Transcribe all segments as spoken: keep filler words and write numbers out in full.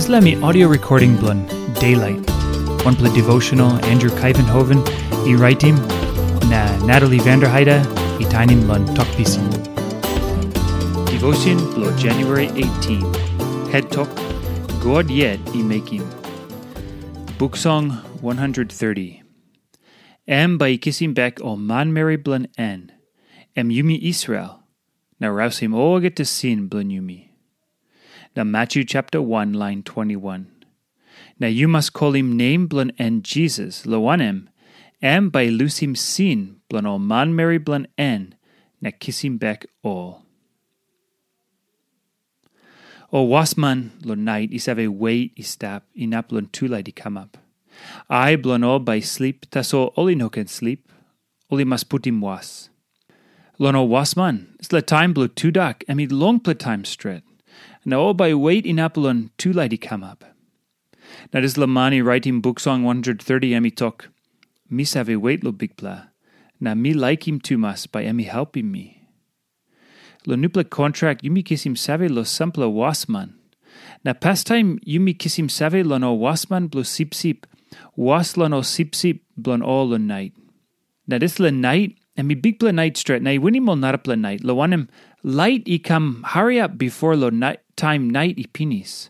Dispela mi audio recording bilong Daylight. Wanpela devotional Andrew Kuyvenhoven i raitim, na Natalie Vanderheide i tainim long tok pisin. Devotion bilong January eighteen. Head tok, God yet i mekim. Buk Song one hundred thirty. Em bai i kisim bek ol manmeri bilong en, em yumi Israel, na rausim olgeta sin bilong yumi. Na Matthew chapter one, line twenty-one. Na yu mas kolim nem bilong en Jisas, long wanem, em bai i lusim sin bilong ol manmeri bilong en na kisim bek ol. Ol wasman long nait i save wet i stap inap long tulait i kamap. Ai bilong ol bai i slip, tasol ol i no ken slip. Ol i mas putim was. Long ol wasman, dispela taim bilong tudak em i longpela taim stret, na ol bai i wet inap long tulait i kamap. Na dispela man i raitim Buk Song one hundred thirty em i tok, "Mi save wet long Bikpela, na mi laikim tumas bai em i helpim mi." Long nupela kontrak yumi kisim save long sampela wasman. Na pastaim yumi kisim save long ol wasman bilong sipsip, was long ol sipsip bilong ol long nait. Na dispela nait, em i bikpela nait stret, na i winim ol narapela nait, long wanem, lait i kam hariap bifor long nait, taim nait i pinis.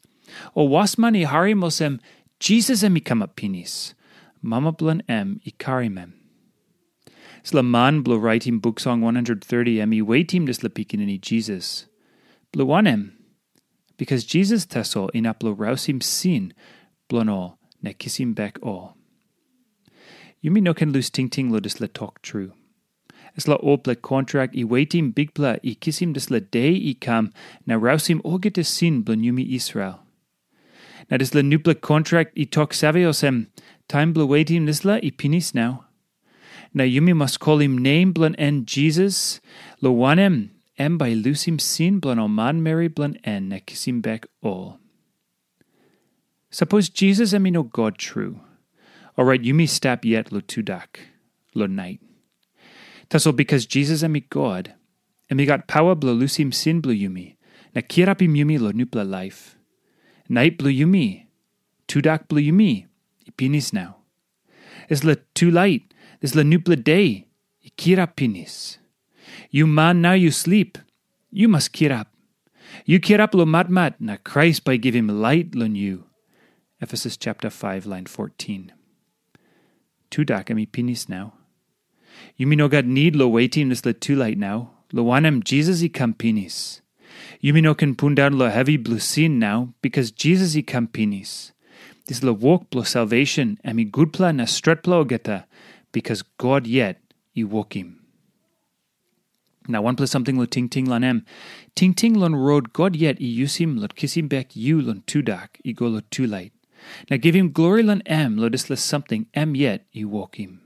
Ol wasman i harim olsem, Jisas em i kamap pinis. Mama bilong em i karim em. Dispela man bilong raitim Buk Song one hundred thirty em i wetim dispela pikinini Jisas. Bilong wanem? Bikas Jisas tasol inap long rausim sin bilong ol na kisim bek ol. Yumi no ken lus tingting long dispela tok tru. Dispela olpela kontrak i wetim Bikpela i kisim dispela de i kam na rausim olgeta sin bilong yumi Israel. Na dispela nupela kontrak i tok save olsem, taim bilong wetim dispela i pinis nau. Na yumi mas kolim nem bilong en Jisas, long wanem, em bai i lusim sin bilong ol manmeri bilong en na kisim bek ol. Sapos Jisas em i no God tru, orait yumi stap yet long tudak, long nait. Tasol bikas Jisas em i God, em i gat pawa bilong lusim sin bilong yumi, na kirapim yumi long nupela laip. Nait bilong yumi, tudak bilong yumi, i pinis nau. Dispela tulait, dispela nupela de, i kirap pinis. Yu man nau yu slip, yu mas kirap. Yu kirap long matmat, na Krais bai givim lait long yu. Efesus chapter five, line fourteen. Tudak em i pinis nau. Yumi no gat nid long wetim dispela tulait nau, long wanem, Jisas i kam pinis. Yumi no ken pundaun long hevi bilong sin nau, bikas Jisas i kam pinis. Dispela wok bilong salvation em i gutpela na stretpela olgeta, bikas God yet i wokim. Na wanpela samting long tingting long em. Tingting long rot God yet i yusim long kisim bek yu long tudak i go long tulait. Na givim glori long em long dispela samting em yet i wokim.